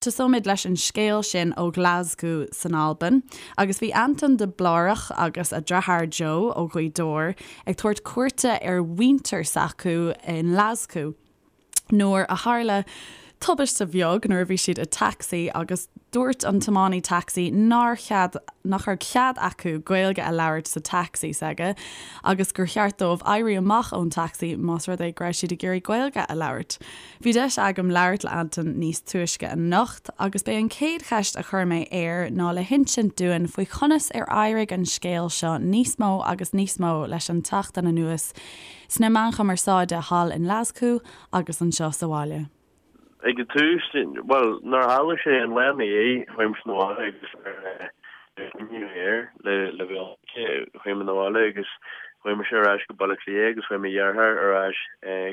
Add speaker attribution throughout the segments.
Speaker 1: Tosóimid leis an scéal sin ó Ghlaschú san Albain, agus bhí Anton de Blárach agus a dheartháir Joe ó Ghaoth Dobhair ag tabhairt cuairte ar mhuintir s'acu i nGlaschú nuair a tharla tubaiste bheag nuair a bhí siad i dtacsaí agus dúirt an tiománaí tacsaí nár chead nach raibh cead acu Gaeilge a labhairt sa tacsaí s'aige agus gur cheart dóibh éirí amach ón tacsaí más rud é go raibh siad ag iarraidh Gaeilge a labhairt. Bhí deis agam labhairt le Anton níos túisce anocht agus b'é an chéad cheist a chuir mé air ná le hinsint dúinn faoi chonas ar éirigh an scéal seo níos mó agus níos mó leis an tseachtain anuas sna meáin chumarsáide thall i nGlaschú agus anseo sa bhaile.
Speaker 2: Ag an tús, bhuel, nuair a tharla sé an lá ina dhiaidh, chuaigh mise 'na bhaile agus ar cuimhneamh air le le bheith chuaigh mé 'na bhaile agus chuaigh mise ar ais go Baile Átha Cliath agus chuaigh mo dheartháir ar ais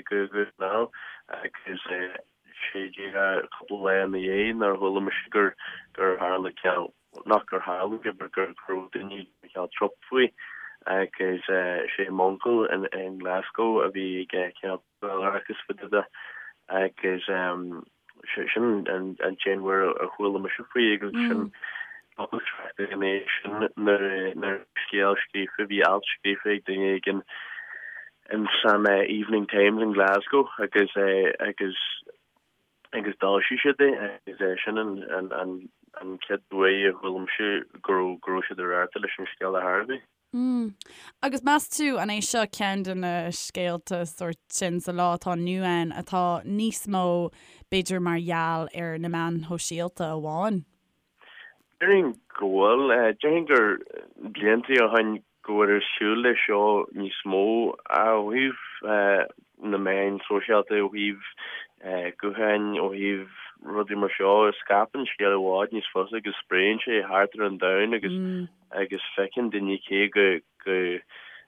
Speaker 2: go Dún na nGall agus sé díreach cúpla lá ina dhiaidh nuair a chuala mise gur gur tharla cineál nach gur tharla sé but gur go raibh daoine ag cineál trup faoi agus sé m'uncail in in Glasgow a bhí ag cineál agus fá dtaobh de agus sin an t-aon uair a chuala mise faoi agus sin ina dhiaidh sin nuair scéal scríofa, bhí alt scríofa ag duine éigin in san Evening Times in Glasgow agus agus agus d'fhoilsigh siad é agus sin an chéad uair a chuala mise go raibh go raibh siad ag rabharta leis an scéal ar chor ar bith.
Speaker 1: Mm. Agus meas tú, an é seo ceann de na scéalta sórt sin sa lá atá inniu ann atá níos mó, b'fhéidir, mar gheall ar na meáin shóisialta amháin?
Speaker 2: Déarfainn go bhfuil. Déarfainn gur blianta ó shin go bhfuil ar siúl leis seo níos mó ó thaobh na meáin sóisialta, ó thaobh gutháin, ó thaobh rudaí mar seo. Scaipeann scéal i bhfad níos fusa agus spréann sé thart ar an domhan agus agus feiceann daoine cé go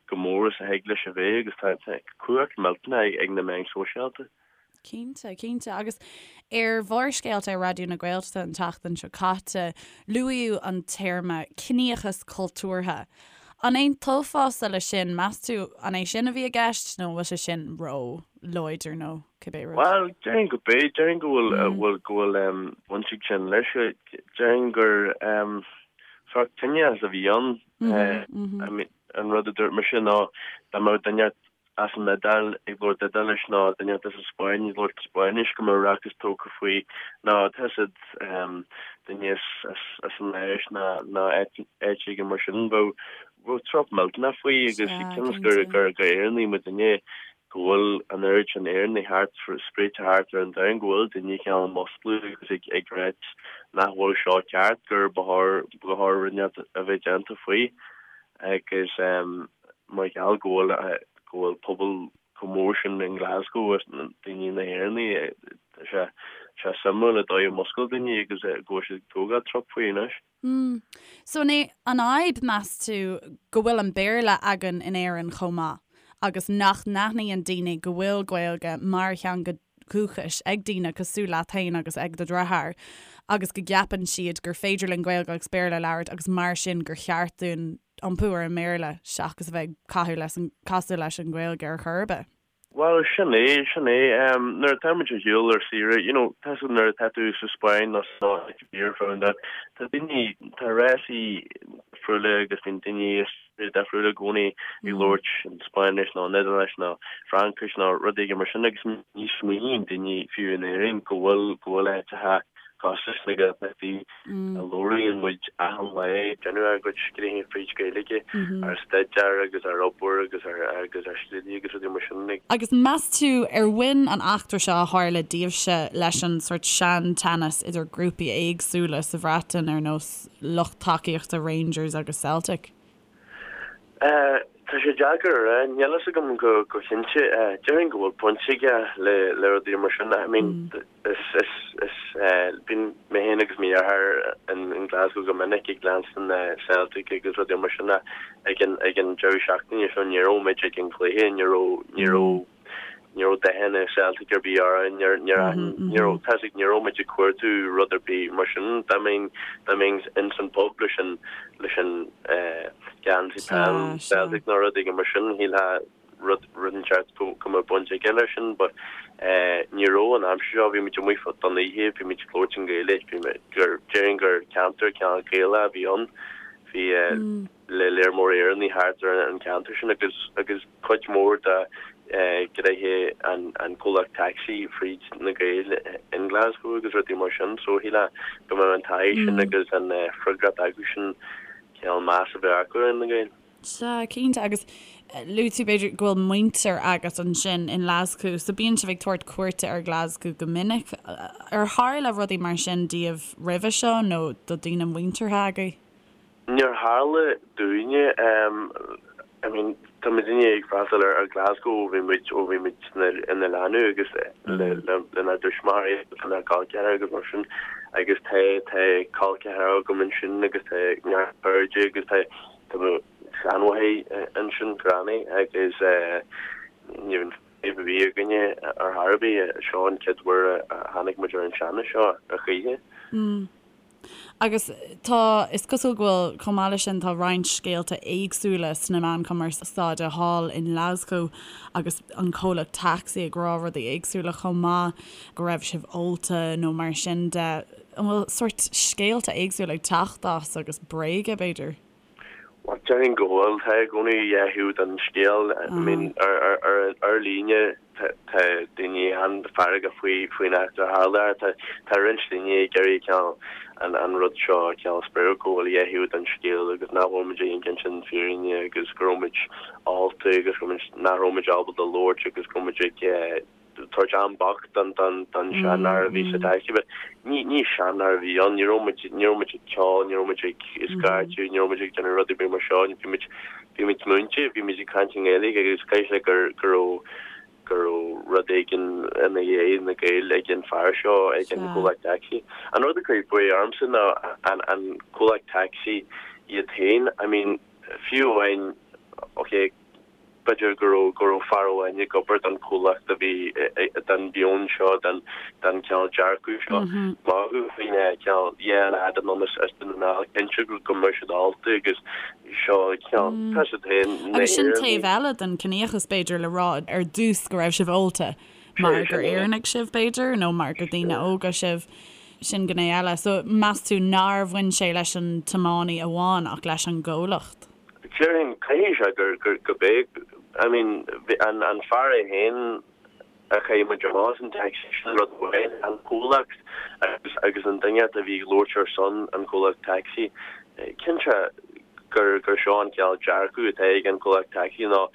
Speaker 2: go mór is a thig leis a bheith agus tá cumhacht millteanach ag na meáin sóisialta.
Speaker 1: Cinnte, cinnte. Agus ar Bharrscéalta ar Raidió na Gaeltachta an tseachtain seo caite, luaíodh an téarma 'ciníochas cultúrtha'. An aontófása leis sin, meas tú an é sin a bhí i gceist nó an bhfuil sé sin ró-láidir nó cibé rud?
Speaker 2: Bhuel, déarfainn go b'é. Déarfainn go bhfuil go bhfuil baint ag sin leis. Déarfainn gur Sórt ciníochas a bhí ann. I mean, an rud a dúirt mise ná dá mbeadh duine as an Iodáil ag labhairt Iodáilis nó duine as an Spáinn ag labhairt Spáinnis go mbeadh rachas tógtha faoi nó tá siad duine as an Áis nó áit éigin mar sin bheadh bheadh trup millteanach faoi agus cionn is gur gur gur Éireannaigh muidinne go bhfuil an oiread sin Éireannaigh thart, spréite thart ar an domhan, go bhfuil daoine cineál ag musclú agus ag ag ráit nach bhfuil seo ceart, gur ba chóir ba chóir rud inteacht a bheith déanta faoi agus mar gheall go bhfuil go bhfuil pobal chomh mór sin in Glasgow agus daoine na hÉireannaigh, tá sé sé suimiúil an dóigh a muscail daoine agus go bhfuil siad ag tógáil trup faoi anois.
Speaker 1: Mm. So an é an fhadhb, meas tú, go bhfuil an Béarla againn in Éirinn chomh maith agus nach n-aithníonn daoine go bhfuil Gaeilge mar theanga dhúchais ag daoine cosúil leat féin agus ag do dheartháir agus go gceapann siad gur féidir linn Gaeilge agus Béarla a labhairt agus mar sin gur cheart dúinn iompú ar an mBéarla seachas a bheith ag caitheamh leis an casadh leis an Ghaeilge ar chor ar bith?
Speaker 2: Bhuel, sin é, sin é. Nuair atá muid ar shiúl ar saoire, you know, tá a fhios agat nuair atá tú sa Spáinn nó san áit ar bith ar fud an domhain, tá daoine, tá rásaí difriúla agus bíonn daoine as tíortha difriúla i gcónaí ag labhairt an Spáinnis nó an Iodáilis nó Fraincis nó rud éigin mar sin agus ní smaoiníonn daoine fiú in Éirinn go bhfuil, go bhfuil áiteacha cosúil leis na Gaeltachtaí a labhraíonn muid achan lá, déanamh ár gcuid gnoithí fríd Ghaeilge, ár staidéar agus ár obair agus ár agus ár slí agus rudaí mar sin.
Speaker 1: Agus meas tú ar bhain an eachtra seo a tharla daoibhse leis an sórt sean-teannas idir grúpaí éagsúla sa Bhreatain ar nós lucht tacaíochta Rangers agus Celtic?
Speaker 2: Tá sé deacair a rá, níl fhios agam go go cinnte. Déarfainn go bhfuil baint aige le le rudaí mar sin. I mean is is is bíonn mé féin agus mo dheartháir in in Glasgow go minic ag leanstan Celtic agus rudaí mar sin ag an ag an deireadh seachtaine seo ní raibh muid ag an gcluiche, ní raibh ní raibh ní raibh dathanna Celtic ar bith orainn, ní raibh, tá a fhios agat, ní raibh muid ag cuartú rud ar bith mar sin. Dá mbeinn, dá mbeinn ins an pub leis an, leis an geansaí peil Celtic nó rud éigin mar sin, shílfeá rud, rud inteacht go, go mbeadh baint aige leis sin but. Ní raibh an aimsir seo, bhí muid amuigh don oíche, bhí muid ag labhairt i nGaeilge, bhí muid, gur, déarfainn gur ceantar cineál Gaelach a bhí ann, bhí le léar mór Éireannaigh thart ar an cheantar sin agus, agus cuid mhór de ghnoithe an, an comhlacht tacsaí fríd na Gaeil in Glasgow agus rudaí mar sin so shílfeá go mbeadh an taithí sin agus an freagracht acu sin cineál meas a bheith acu ar na Gaeil.
Speaker 1: Sea, cinnte, agus luaigh tú b'fhéidir go bhfuil muintir agat ansin in nGlaschú, so bíonn sibh ag tabhairt cuairte ar Ghlaschú go minic. Ar tharla rudaí mar sin daoibh roimhe seo nó do daoine muinteartha agaibh?
Speaker 2: Níor tharla dúinne. I mean, tá muidinne ag freastal ar Glasgow ó bhí muid, ó bhí muid ina leanbh agus lenár dtuismitheoirí agus lenár gcol ceathracha agus mar sin agus tá, tá col ceathracha agam ansin agus tá neart cairde agus tá, tá mo sheanmháthair ansin, granny, agus ní raibh fadhb ar bith againne ar chor ar bith. Seo an chéad uair a tháinig muid ar an teannas seo ar choíche.
Speaker 1: Agus tá, is cosúil go bhfuil, chomh maith leis sin, tá roinnt scéalta éagsúla sna meáin chumarsáide thall i nGlaschú agus an comhlacht tacsaí ag rá rudaí éagsúla chomh maith, go raibh sibh ólta nó mar sin de. An bhfuil sórt scéalta éagsúla ag teacht as agus bréaga, b'fhéidir?
Speaker 2: Bhuel, déarfainn go bhfuil. Tá i gcónaí dhá thaobh den scéal. I mean, ar líne tá daoine an-fheargach faoi faoin eachtra a tharla. Tá tá roinnt daoine ag iarraidh cineál an an rud seo a cineál spreagadh go bhfuil dhá thaobh den scéal agus nach bhfuil muid ag insint an fírinne agus go raibh muid ólta agus go raibh muid nach raibh muid ábalta labhairt agus go raibh muid ag tabhairt am bocht don seanfhear a bhí sa taxi but ní ní seanfhear a bhí ann, ní raibh muid ní raibh muid ag ceol, ní raibh muid ag scairteadh, ní raibh muid ag déanamh rud ar bith mar seo, bhí muid bhí muid múinte, bhí muid ag caint i nGaeilge agus caithfidh sé gur go raibh go raibh rud éigin ina dhiaidh na Gaeil ag an fear seo ag an gcomhlacht taxi. An rud a chuir buaidh ormsa ná an an comhlacht taxi iad féin, I mean fiú amháin ok, B'fhéidir go raibh go raibh fear amháin ag obair don chomhlacht a bhí den mheon seo, den den cineál dearcadh seo. Magadh faoin cineál yeah leaid anonn as as Dún na nGall, cinnte go go mbeadh siad ólta agus seo cineál tá siad féin
Speaker 1: na Agus sin taobh eile den ciníochas b'fhéidir le rá ar dtús go raibh sibh ólta mar gur Éireannaigh sibh b'fhéidir nó mar gur daoine óga sibh. Sin gné eile. So meas tú nár bhain sé leis an tiománaí amháin ach leis an gcomhlacht?
Speaker 2: Déarfainn, caithfidh sé gur, gur, go b'é, I mean, an, an fear é féin a chaith muid amach as an taxi, sin rud amháin, an comhlacht agus, agus an duine a bhí ag labhairt ar son an chomhlacht taxi, cinnte gur, gur seo an cineál dearcadh atá ag an chomhlacht taxi nó,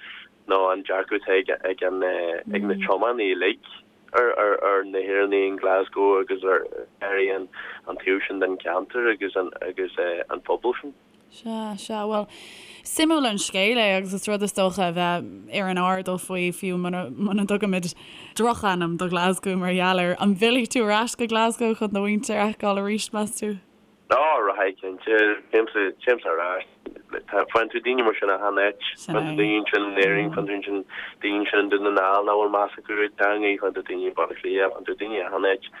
Speaker 2: nó an dearcadh atá ag, ag an, ag na tiománaithe uilig ar, ar, ar na hÉireannaigh in Glasgow agus ar, ar an, an taobh sin den cheantar agus an, agus an pobal sin.
Speaker 1: Sea, sea. Bhuel, suimiúil an scéal é agus is rud is dócha a bheith ar an airdeall faoi, fiú muna, muna dtugaimid drochainm do Ghlaschú mar gheall air. An bhfillfidh tú ar ais go Glasgow chun do mhuintir a fheiceáil arís, meas tú?
Speaker 2: Á, rachaidh, cinnte. Téimse, téimse ar ais. Tá, faigheann tú daoine mar sin achan áit.
Speaker 1: Sin
Speaker 2: Faigheann tú
Speaker 1: é.
Speaker 2: daoine ansin in Éirinn, faigheann tú ansin, daoine ansin i nDún na nGall nach bhfuil meas acu ar an teanga, faigheann tú daoine i Baile Átha Cliath, faigheann tú daoine achan áit.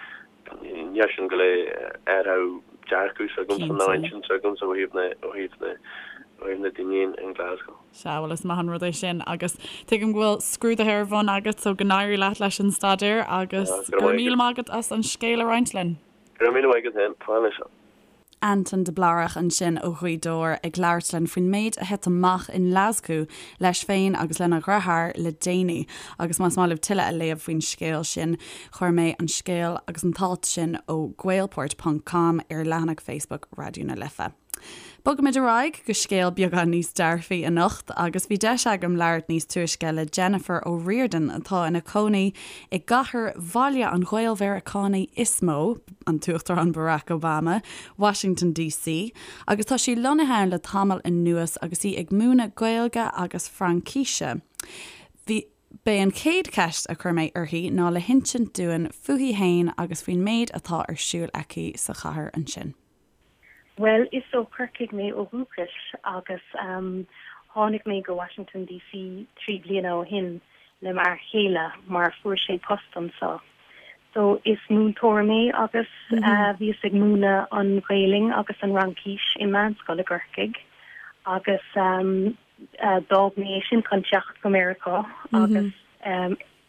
Speaker 2: Níl sin go léir athrú dearcadh s'agamsa nó intinn s'agamsa ó thaobh na ó thaobh na ó thaobh na daoine in Glasgow.
Speaker 1: Sea, bhuel is maith an rud é sin agus tuigim go bhfuil scrúduithe ar bun agat so go n-éirí leat leis an staidéar agus go raibh míle maith agat as an scéal a roinnt linn.
Speaker 2: Go raibh míle maith agat féin. Slán leis.
Speaker 1: Anton de Blárach ansin ó Ghaoth Dobhair ag labhairt linn faoin méid a thit amach i nGlaschú leis féin agus lena dheartháir le déanaí. Agus más maith libh tuilleadh a léamh faoin scéal sin, chuir mé an scéal agus an t-alt sin ó Gaelport ponc com ar leathanach Facebook Raidió na Life. Bogaimid ar aghaidh go scéal beagán níos dearfaí anocht agus bhí deis agam labhairt níos túisce le Jennifer O'Riordan atá ina cónaí i gcathair bhaile an Ghael-Mheiriceánaigh is mó, an tUachtarán Barack Obama, Washington DC, agus tá sí lonnaithe ann le tamall anuas agus í ag múineadh Gaeilge agus Fraincíse. Bhí. B'é an chéad cheist a chuir mé uirthi ná le hinsint dúinn fúithi fhéin agus faoin méid atá ar siúl aici sa chathair ansin.
Speaker 3: Bhuel, is ó Chorcaigh mé ó dhúchas agus tháinig mé go Washington DC 3 bliana ó shin le m'fhear chéile mar fuair sé post anseo. So is múinteoir mé agus bhíos ag múineadh an Ghaelainn agus an Fhraincis i meánscoil i gCorcaigh agus d'fhág mé é sin chun teacht go Meiriceá agus.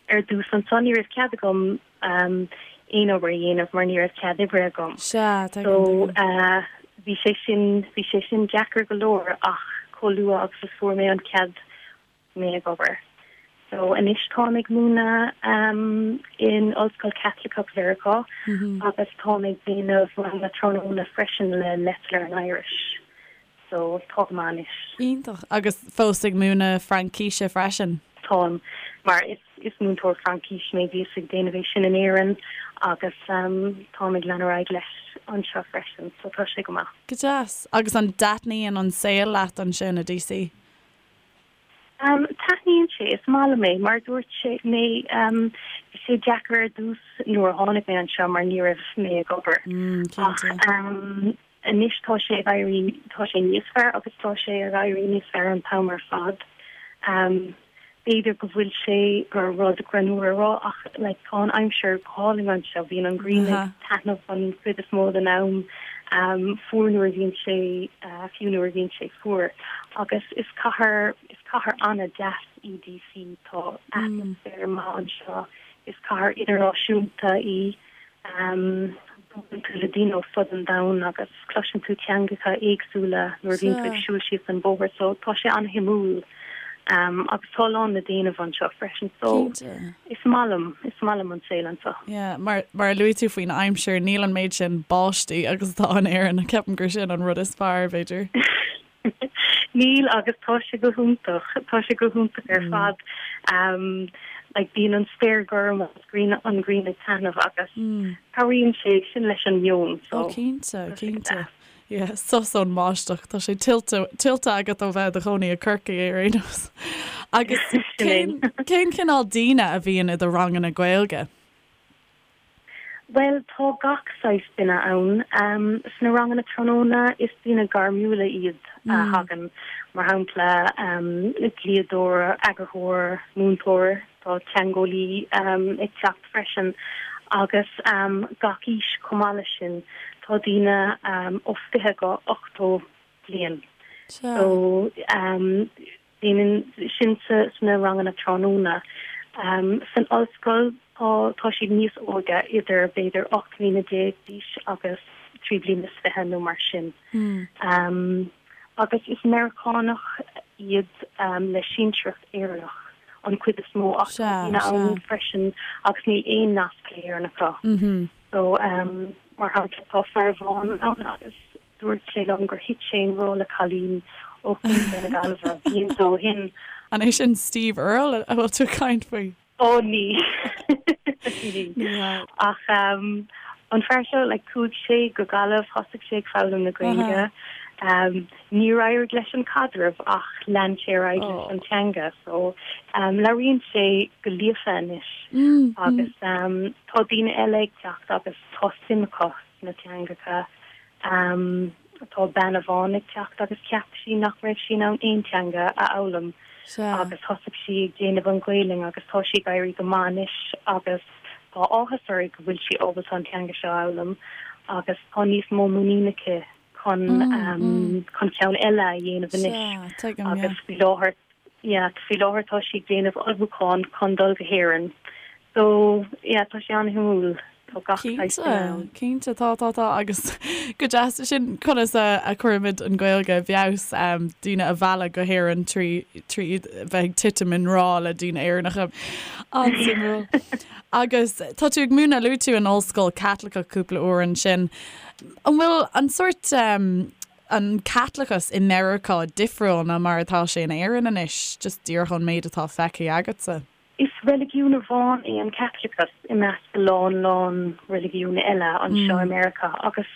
Speaker 3: Ar dtús anso ní raibh cead agam aon obair a dhéanamh mar ní raibh cead oibre agam.
Speaker 1: Sea,
Speaker 3: tuigim, So tuigim. bhí sé sin, bhí sé sin deacair go leor ach chomh luath agus a fuair mé an cead thosaigh mé ag obair. So anois táim ag múineadh in Ollscoil Chaitliceach Mheiriceá agus táim ag déanamh ranganna tráthnóna freisin le Let's Learn Irish. So tá go maith anois.
Speaker 1: Iontach. Agus fós ag múineadh Fraincíse freisin?
Speaker 3: Táim, mar is is múinteoir Fraincíse mé, bhíos ag déanamh é sin in Éirinn agus táim ag lean ar aghaidh leis anseo freisin, so tá sé go maith.
Speaker 1: Go deas. Agus an dtaitníonn an saol leat ansin i DC?
Speaker 3: Taitníonn sé, is maith liom é. Mar a dúirt sé mé, bhí sé deacair ar dtús nuair a tháinig mé anseo mar ní raibh mé ag obair. Ach anois tá sé ag éirí, tá sé níos fearr agus tá sé ag éirí níos fearr an t-am ar fad. B'fhéidir go bhfuil sé gur rud greannmhar a rá ach like tá an aimsir go hálainn anseo, bíonn an ghrian ag taitneamh an chuid is mó den am, fuar nuair a bhíonn sé, fiú nuair a bhíonn sé fuar. Agus is cathair, is cathair an-deas í DC, tá atmaisféar maith anseo, is cathair idirnáisiúnta í. Buaileann tú le daoine ó fud an domhain agus cloiseann tú teangacha éagsúla nuair a bhíonn tú ag siúl síos an bóthar so tá sé an-shuimiúil agus tá a lán le déanamh anseo freisin so is maith liom, is maith liom an saol anseo.
Speaker 1: Yeah, mar, mar a luaigh tú faoin aimsir, níl an méid sin báistí agus atá in Éirinn, ceapaim gur sin an rud is fearr, b'fhéidir.
Speaker 3: Níl agus tá sé go hiontach, tá sé go hiontach ar fad. Like bíonn an spéir gorm agus grian, an ghrian ag taitneamh agus cabhraíonn sé sin leis an meon
Speaker 1: so. Ó cinnte, cinnte. Yeah, sos ón mbáisteach, tá sé tuillte, tuillte agat ó bheith i do chónaí i Corcaigh ar aon nós. Agus cén, cén cineál daoine a bhíonn i do ranganna Gaeilge?
Speaker 3: Bhuel, tá gach saghas duine ann. Sna ranganna tráthnóna, is daoine gairmiúla iad a thagann, mar shampla, dlíodóir, eagarthóir, múinteoir, tá teangeolaí ag teacht freisin, agus gach aois chomh maith leis sin. Tá daoine ó 20 go 80 bliain. So. Déanann sin sna ranganna tráthnóna. San ollscoil tá tá siad níos óige, idir b'fhéidir 18 mbliana d'aois agus 23 bliana nó mar sin. Agus is Meiriceánach iad le sinsearacht Éireannach an chuid is mó ach tá daoine ann freisin agus níl aon nasc le hÉirinn acu. So mar shampla tá fear amháin ann agus Dúirt sé liom gur thit sé i ngrá le cailín ó Chontae na Gaillimhe blianta ó shin.
Speaker 1: An é sin Steve Earle a bhfuil tú ag caint faoi?
Speaker 3: Ó ní. Ní hea. Ach an fear seo, like, chuaigh sé go Gaillimh, thosaigh sé ag foghlaim na Gaeilge. Níor éirigh leis an caidreamh ach lean sé ar aghaidh leis an teanga. So labhraíonn sé go líofa anois agus tá daoine eile ag teacht agus tá suim acu sna teangacha. Tá bean amháin ag teacht agus cheap sí nach raibh sí in ann aon teanga a fhoghlaim agus thosaigh sí ag déanamh an Ghaelainn agus tá sí ag éirí go maith anois agus tá áthas uirthi go bhfuil sí ábalta an teanga seo a fhoghlaim agus tá níos mó muinín aici chun chun ceann eile a dhéanamh anois agus faoi láthair Yeah, faoi láthair tá sí ag déanamh ullmhúchán chun dul go hÉirinn. So, yeah, tá sé an-shuimiúil. Tá gach saghas duine
Speaker 1: ann. Cinnte, cinnte, tá, tá, tá agus go deas sin conas a a chuirimid an Ghaeilge i bhfeabhas, daoine a mhealladh go hÉirinn trí trí iad bheith ag titim i ngrá le daoine Éireannacha. An-suimiúil. Agus tá tú ag múineadh, luaigh tú an ollscoil Caitliceach cúpla uair ansin. An bhfuil an sórt an Caitliceachas i Meiriceá difriúil ná mar atá sé in Éirinn anois, just díreach ón méid atá feicthe agatsa?
Speaker 3: Is reiligiún amháin é an Caitliceachas i measc a lán lán reiligiún eile anseo i Meiriceá agus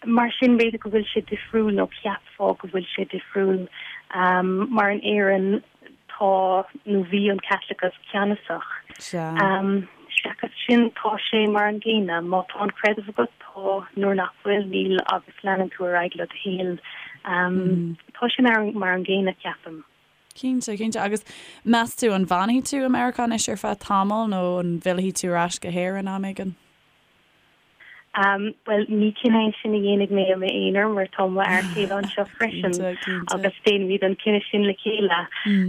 Speaker 3: mar sin b'fhéidir go bhfuil sé difriúil nó cheapfá go bhfuil sé difriúil mar in Éirinn tá nó bhí an Caitliceachas ceannasach. Seachas sin, tá sé mar an gcéanna. Má tá an creideamh agat, tá, nuair nach bhfuil, níl agus leanann tú ar aghaidh le do shaol. Tá sé mar an gcéanna, ceapaim.
Speaker 1: Cinnte, cinnte. Agus meas tú an bhfanfaidh tú i Meiriceá anois ar feadh tamaill nó an bhfillfidh tú ar ais go hÉirinn am éigin?
Speaker 3: Bhuel, ní cinneadh é sin a dhéanfaidh mé i m'aonar mar tá mo fhear céile anseo freisin agus déanfaimid an cinneadh sin le chéile.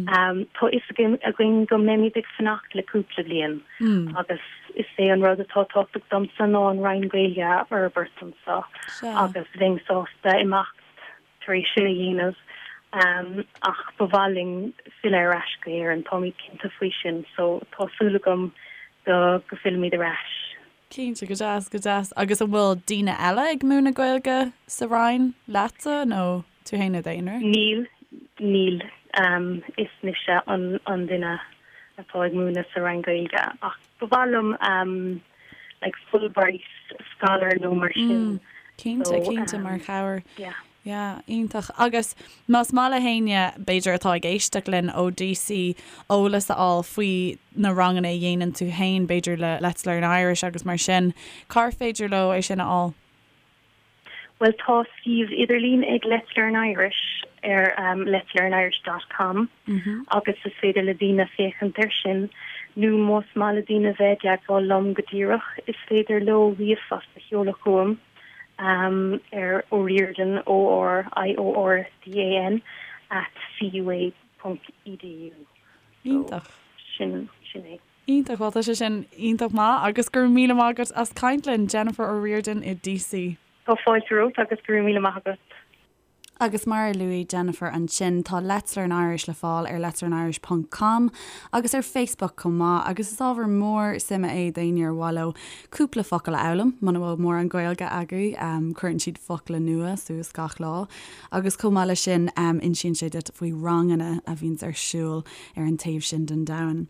Speaker 3: Tá fhios againn go mbeimid ag fanacht le cúpla bliain agus is é an rud atá tábhachtach domsa ná an Roinn Gaeilge a fhorbairt anseo agus bheinn sásta imeacht tar éis sin a dhéanamh ach ba mhaith linn filleadh ar ais go hÉirinn, táimid cinnte faoi sin so tá súil agam go go bhfillfimid ar ais.
Speaker 1: Cinnte, go deas, go deas. Agus an bhfuil daoine eile ag múineadh Gaeilge sa Roinn leatsa nó tú féin i d'aonar?
Speaker 3: Níl, níl. Is mise an an duine atá ag múineadh sa Roinn Gaeilge ach ba mhaith liom like Fulbright scholar nó mar sin.
Speaker 1: Cinnte, cinnte, mar chabhair. Yeah. Yeah, iontach. Agus más maith le héinne, b'fhéidir, atá ag éisteacht linn ó DC, eolas a fháil faoi na ranganna a dhéanann tú féin, b'fhéidir le Let's Learn Irish agus mar sin, cár féidir leo é sin a fháil?
Speaker 3: Bhuel, tá suíomh idirlín ag Let's Learn Irish ar letslearnirish dot com agus is féidir le daoine féachaint air sin nó más maith le daoine bheith i dteagmháil liom go díreach, is féidir leo ríomhphost a sheoladh chugam. ar O'Riordan, O-R-I-O-R-D-A-N, at CUA ponc edu.
Speaker 1: Iontach.
Speaker 3: Sin, sin é.
Speaker 1: Iontach, bhuel tá sé sin iontach maith agus go raibh míle maith agat as caint linn, Jennifer O'Riordan i DC.
Speaker 3: Tá fáilte romhat agus go raibh míle maith agat.
Speaker 1: Agus mar a luaigh Jennifer ansin, tá Let's Learn Irish le fáil ar letslearnirish ponc com agus ar Facebook chomh maith agus is ábhar mór suime é d'éinne ar mhaith leo cúpla focal a fhoghlaim, muna bhfuil mórán Gaeilge agaibh, cuireann siad focla nua suas gach lá agus chomh maith leis sin insíonn sé duit faoi ranganna a bhíonns ar siúl ar an taobh sin den domhan.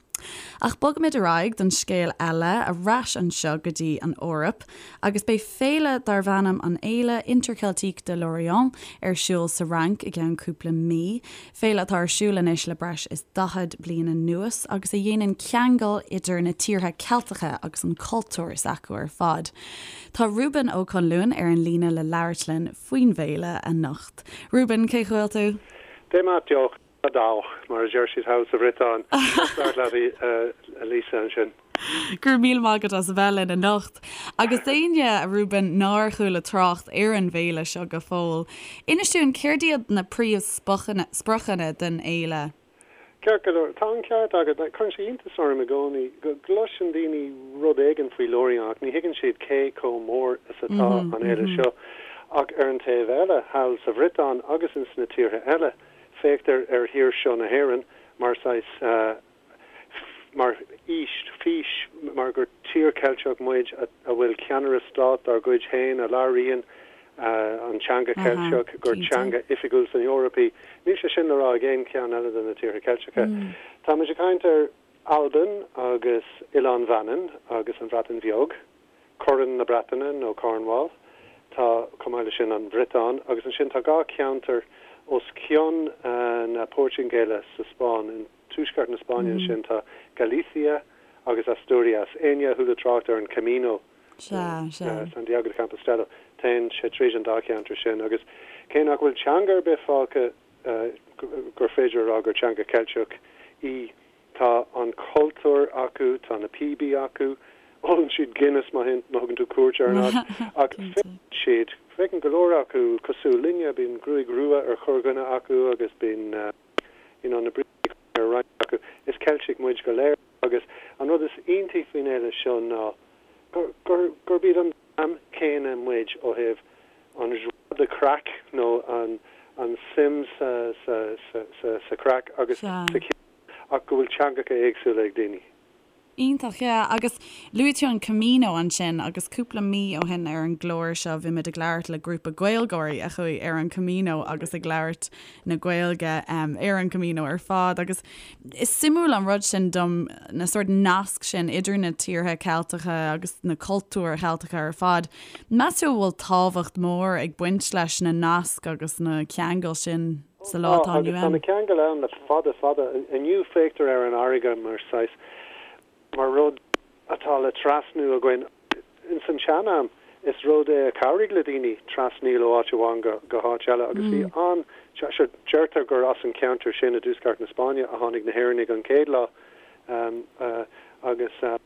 Speaker 1: Ach bogaimid ar aghaidh don scéal eile, ar ais anseo go dtí an Eoraip. Agus beidh féile darb ainm an Fhéile Interceltique de Lorient ar siúl sa Fhrainc i gceann cúpla mí. Féile atá ar siúl anois le breis is 40 bliain anuas agus a dhéanann ceangal idir na tíortha Ceilteacha agus an cultúr s'acu ar fad. Tá Reuben Ó Conluain ar an líne le labhairt linn faoin bhféile anocht. Reuben, cén chaoi a bhfuil tú?
Speaker 4: Dé maith deoch. Dawch, mar a deir siad thall sa Bhriotáin. Deas labhairt leat, a Lisa, ansin.
Speaker 1: Go raibh míle maith agat as a bheith linn anocht. Agus d'éinne, a Reuben, nár chuala trácht ar an bhféile seo go fóill, inis dúinn céard iad na príomhspriocanna den fhéile?
Speaker 4: Ceart go leor, tá an ceart agat. Cuireann sé iontas orm i gcónaí go gcloiseann daoine rud éigin faoi Lorient ach ní thuigeann siad cé chomh mór is atá an fhéile seo. Ach ar an taobh eile, thall sa Bhriotáin agus ins na tíortha eile, Féachtar ar thír seo na hÉireann mar saghas, mar fhís, fís, mar gur tír Cheilteach muid a bhfuil ceannaire stáit dár gcuid féin a labhraíonn an teanga Cheilteach, gur teanga oifigiúil san Eoraip í. Níl sé sin le rá ag aon cheann eile de na tíortha Ceilteacha. Táimid ag caint ar Albain agus Oileán Mhanann agus an Bhreatain Bheag. Corn na Breataine nó Cornwall. Tá, chomh maith leis sin, an Bhriotáin agus ansin tá 2 cheantar os cionn na Portaingéile sa Spáinn, in tuaisceart na Spáinne ansin tá Galicia agus Asturias. Éinne a chuala trácht ar an Camino Santiago de Compostela, téann sé tríd an dá cheantar sin agus cé nach bhfuil teanga ar bith fágtha gur féidir a rá gur teanga Cheilteach í, Tá an cultúr acu, tá na píobaí acu, ólann siad Guinness má thugann tú cuairt ar an áit, ach féachann siad, féachann go leor acu cosúil linne, bíonn gruaig rua ar chorrdhuine acu agus bíonn you know na brístí ar roinnt acu. Is Ceiltigh muid go léir agus an rud is iontaí faoin fhéile seo ná gur, gur, gurb iad an dream céanna muid ó thaobh an joie de craic nó an, an suim sa, sa, sa, sa, sa chraic agus sa cheol. ach go bhfuil teangacha éagsúla ag daoine.
Speaker 1: Iontach, yeah. Agus luaigh tú an Camino ansin agus cúpla mí ó shin ar an gclár seo bhí muid ag labhairt le grúpa Gaeilgeoirí a chuaigh ar an Camino agus ag labhairt na Gaeilge ar an Camino ar fad agus is suimiúil an rud sin dom na sórt nasc sin idir na tíortha Ceilteacha agus na cultúir Cheilteacha ar fad. Meas tú an bhfuil tábhacht mhór ag baint leis na naisc agus na ceangail sin? sa lá
Speaker 4: atá inniu ann. Agus tá na ceangail ann le fada fada. Inniu féachtar ar an fharraige mar saghas, mar rud atá le trasnú againn. Ins an tsean-am is rud é a chabhraigh le daoine trasnaíl ó áit amháin go go háit eile agus bhí an, sure, deirtear gur as an cheantar sin i dtuaisceart na Spáinne a tháinig na hÉireannaigh an chéad lá agus an.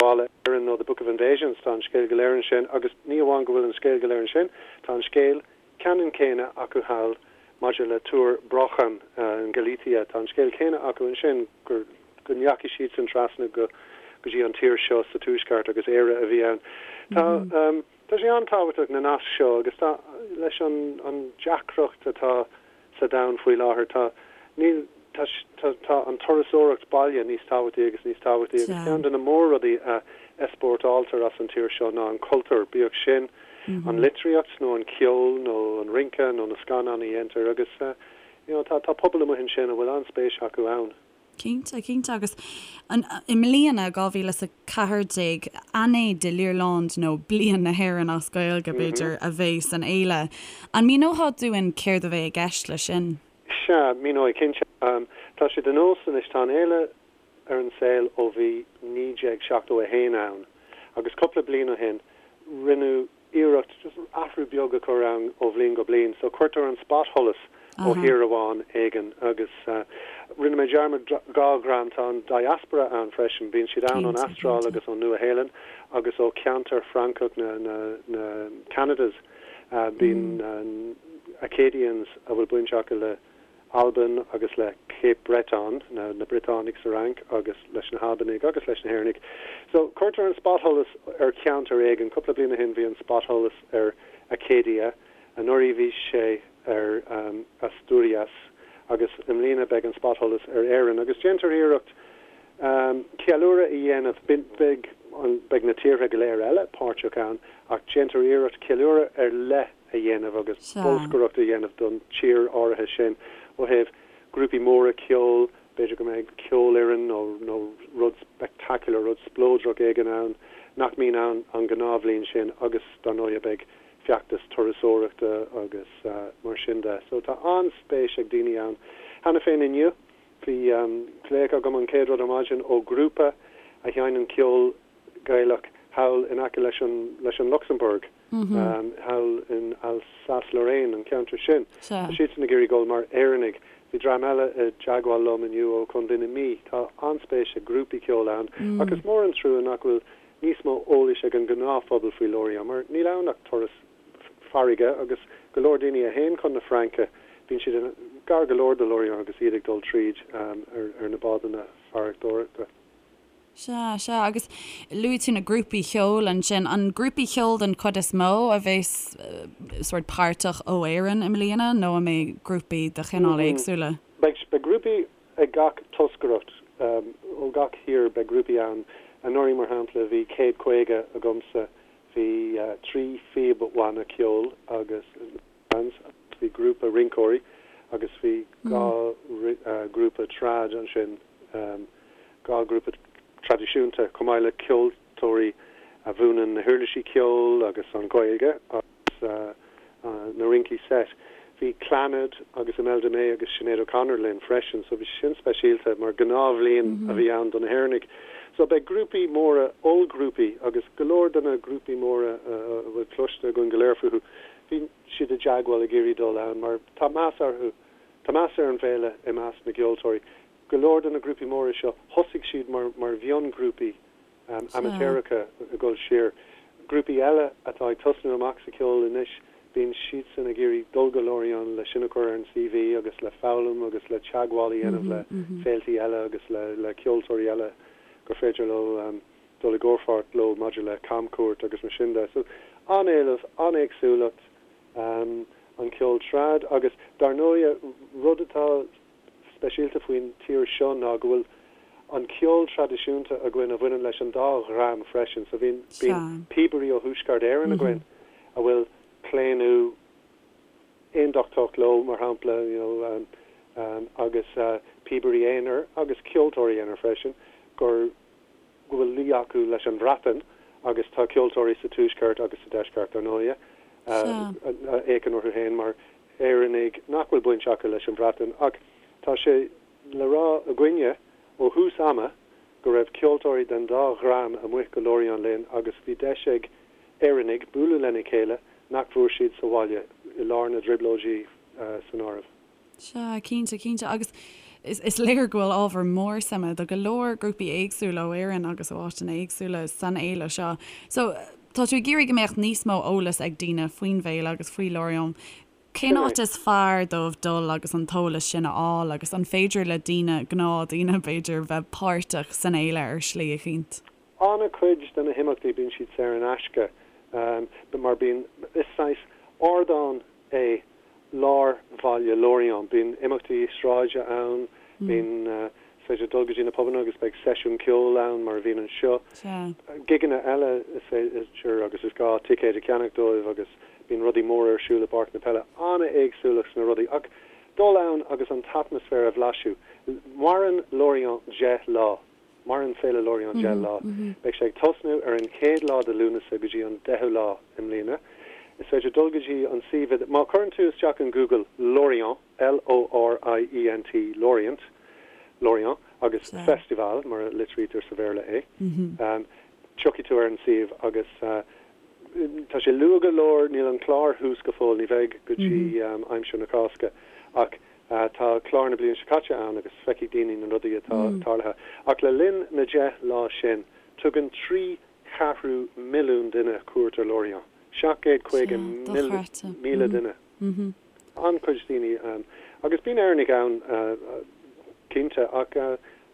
Speaker 4: Ghabhála Éireann nó The Book of Invasions, tá an scéal go léir ansin agus ní amháin go bhfuil an scéal go léir ansin, tá an scéal ceannann céanna acu thall maidir le Túr Brochan in Galicia, tá an scéal céanna acu ansin gur go ndeachaigh siadsan trasna go go dtí an tír seo sa tuaisceart agus Éire a bhí ann. Tá tá sé an-tábhachtach na naisc seo agus tá leis an an deacracht atá sa domhan faoi láthair. Tá, níl, tá, tá, tá an turasóireacht baile níos tábhachtaí agus níos tábhachtaí agus ceann de na mór-rudaí a easpórtáiltear as an tír seo ná an cultúr, bíodh sin an litríocht nó an ceol nó an rince nó na scannáin a dhéantar agus you know tá, tá pobal amuigh ansin a bhfuil an-spéis acu ann.
Speaker 1: Cinnte, cinnte. Agus i mbliana, 2014, Année de l'Irlande nó Bliain na hÉireann as Gaeilge, b'fhéidir, a bheidh san fhéile. An míneofá dúinn céard a bheidh i gceist leis sin?
Speaker 4: Sea, míneoidh, cinnte. Tá sé de nós anois, tá an fhéile ar an saol ó bhí 1971 ann agus cúpla bliain ó shin rinneadh iarracht just athrú beag a chur ann ó bhliain go bliain. So cuirtear an spotsholas ó thír amháin éigin agus rinne mé dearmad 2 dhream, tá an diaspora ann freisin, bíonn siad ann ón Astráil agus ón Nua-Shéalainn agus ó cheantar Francach na na na Canadas. Bíonn Acadians a bhfuil baint acu le Albain agus le Cape Breton, na Briotánaigh sa Fhrainc, agus leis na hAlbanaigh agus leis na hÉireannaigh. So, cuirtear an spotsholas ar cheantar éigin. Cúpla bliain ó shin bhí an spotsholas ar Acadia, anuraidh bhí sé ar Asturias agus i mbliana beidh an spotsholas ar Éirinn. Agus déantar iarracht ceiliúradh a dhéanamh, beidh, beidh na tíortha go léir eile páirteach ann ach déantar iarracht ceiliúradh ar leith a dhéanamh agus bolscaireacht a dhéanamh don tír áirithe sin ó thaobh grúpaí móra ceoil, b'fhéidir go mbeidh ceolfhoireann nó nó rud spectacular, rud spleodrach éigin ann nach mbíonn ann an ghnáthbhliain sin agus dar ndóighe beidh feachtas turasóireachta agus mar sin de. So tá an-spéis ag daoine ann. Cheana féin inniu bhí glaoch agam an chéad rud ar maidin ó ghrúpa a sheinneann ceol Gaelach thall in aice leis an leis an Lucsamburg, thall in Alsace-Lorraine, an ceantar sin. Tá siadsan ag iarraidh dul mar Éireannaigh. Bhí dream eile i dteagmháil liom inniu ó Chontae na Mí. Tá an-spéis ag grúpaí ceoil ann ach is mór an trua nach bhfuil níos mó eolais ag an ngnáthphobal faoi Lorient mar níl ann ach turas farraige agus go leor daoine a théann chun na Fraince, bíonn siad gar go leor do Lorient agus iad ag dul tríd ar na bádanna farantóireachta.
Speaker 1: Sea, sea. Agus luaigh tú na grúpaí cheoil ansin. An grúpaí cheoil den chuid is mó a bheas sórt páirteach ó Éirinn i mbliana nó an mbeidh grúpaí de chineál éagsúla?
Speaker 4: Beidh, beidh grúpaí ag gach toscaireacht, ó gach thír beidh grúpaí ann. Anuraidh, mar shampla, bhí 150 agamsa, bhí 3 phíobbhanna ceoil agus. bands, bhí grúpa rinceoirí agus bhí 2 grúpa trad ansin, 2 grúpa traidisiúnta, chomh maith le ceoltóirí a mhúineann na huirlisí ceoil agus an Ghaeilge agus na rincí seit. Bhí Clannad agus Imelda May agus Sinéad O'Connor linn freisin, so bhí sé sin speisialta mar gnáthbhliain a bhí ann do na hÉireannaigh. So beidh grúpaí móra, ollghrúpaí agus go leor de na grúpaí móra a bhfuil cloiste againn go léir fúthu, Bhí siad i dteagmháil ag iarraidh dul ann mar tá meas orthu, tá meas ar an bhféile i measc na gceoltóirí. Go leor de na grúpaí móra seo, thosaigh siad mar mar mhionghrúpaí amaitéaracha ag dul siar. Grúpaí eile atá ag tosnú amach sa cheol anois, bíonn siadsan ag iarraidh dul go Lorient le sin a chur ar an CV agus le foghlaim agus le teagmháil a dhéanamh le féiltí eile agus le le ceoltóirí eile gur féidir leo dul i gcomhpháirt leo maidir le camchuairt agus mar sin de. So, an-éileamh, an-éagsúlacht, an ceol trad agus dar ndóighe rud atá speisialta faoin tír seo ná go bhfuil an ceol traidisiúnta againn a bhaineann leis an dá dhream freisin. So bíonn, bíonn píobairí ó Thuaisceart Éireann againn a bhfuil claonadh aondachtach leo, mar shampla, you know, agus píobairí aonair agus ceoltóirí aonair freisin gur go bhfuil luí acu leis an Bhreatain agus tá ceoltóirí sa Tuaisceart agus sa Deisceart, dar ndóighe, a fhéachann orthu féin mar Éireannaigh nach bhfuil baint acu leis an Bhreatain. Ach tá sé le rá againne ó thús ama go raibh ceoltóirí den dá dhream amuigh go Lorient linn agus bhí deis ag Éireannaigh bualadh lena chéile nach bhfuair siad sa bhaile, i lár na dTrioblóidí san áireamh.
Speaker 1: Sea, cinnte, cinnte. Agus. Is léir go bhfuil ábhar mór suime do go leor grúpaí éagsúla ó Éirinn agus ó áiteanna éagsúla san fhéile seo. So, tá tú ag iarraidh go mbeadh níos mó eolas ag daoine faoin bhféile agus faoi Lorient. Cén áit is fearr dóibh dul agus an t-eolas sin a fháil agus an féidir le daoine, gnáthdhaoine b'fhéidir, bheith páirteach san fhéile ar shlí eicínt?
Speaker 4: An-chuid de na himeachtaí bíonn siad saor in aisce mar bíonn, is saghas ardán é lár bhaile Lorient. Bíonn imeachtaí sráide ann, bíonn, is féidir dul go dtí na pubanna agus beidh seisiún ceoil ann mar a bhíonn anseo. Gigeanna eile is féidir agus is gá ticéid a cheannach dóibh agus bíonn rudaí móra ar siúl i bPáirc na Peile. An-éagsúlacht sna rudaí ach dul ann agus an t-atmaisféar a bhlaiseadh. Maireann Lorient 10 lá. Maireann Féile Lorient 10 lá. Beidh sé ag tosnú ar an chéad lá de Lúnasa go dtí an deichiú lá i mbliana. Is féidir dul go dtí an suíomh má chuireann tú isteach in Google Lorient, L-O-R-I-E-N-T, Lorient, Lorient, agus Festival, mar a litrítear sa Bhéarla é, tiocfaidh tú ar an suíomh agus tá sé luath go leor, níl an clár thuas go fóill, ní bheidh go dtí aimsir na Cásca, ach Tá clár na bliana seo caite ann agus feicfidh daoine na rudaí atá tarlaithe. Ach le linn na 10 lá sin, tugann 3 cheathrú milliún duine cuairt ar Lorient. 750,000 duine. An-chuid daoine. Agus bíonn Éireannaigh ann, cinnte, ach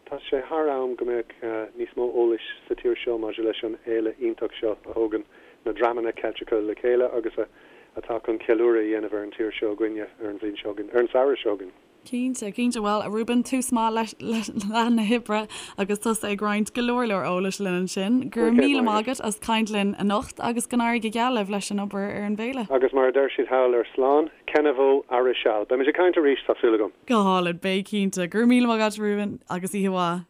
Speaker 4: tá sé thar am go mbeadh níos mó eolais sa tír seo maidir leis an fhéile iontach seo a thógann na dreamanna Ceilteacha le chéile agus a atá chun ceiliúradh a dhéanamh ar an tír seo againne ar an bhliain seo chugainn, ar an samhradh seo chugainn.
Speaker 1: Cinnte, cinnte. Bhuel, a Reuben, tús maith le lá na hoibre agus tusa ag roinnt go leor leor eolais linn ansin. Go raibh míle maith agat as caint linn anocht agus go n-éirí go geal libh leis an obair ar an bhféile.
Speaker 4: Agus mar a deir siad thall ar Slán, Kenavo ar seal. Beimid ag caint arís, tá súil agam.
Speaker 1: Go hálainn, beidh cinnte. Go raibh míle maith agat, Reuben, agus oíche mhaith.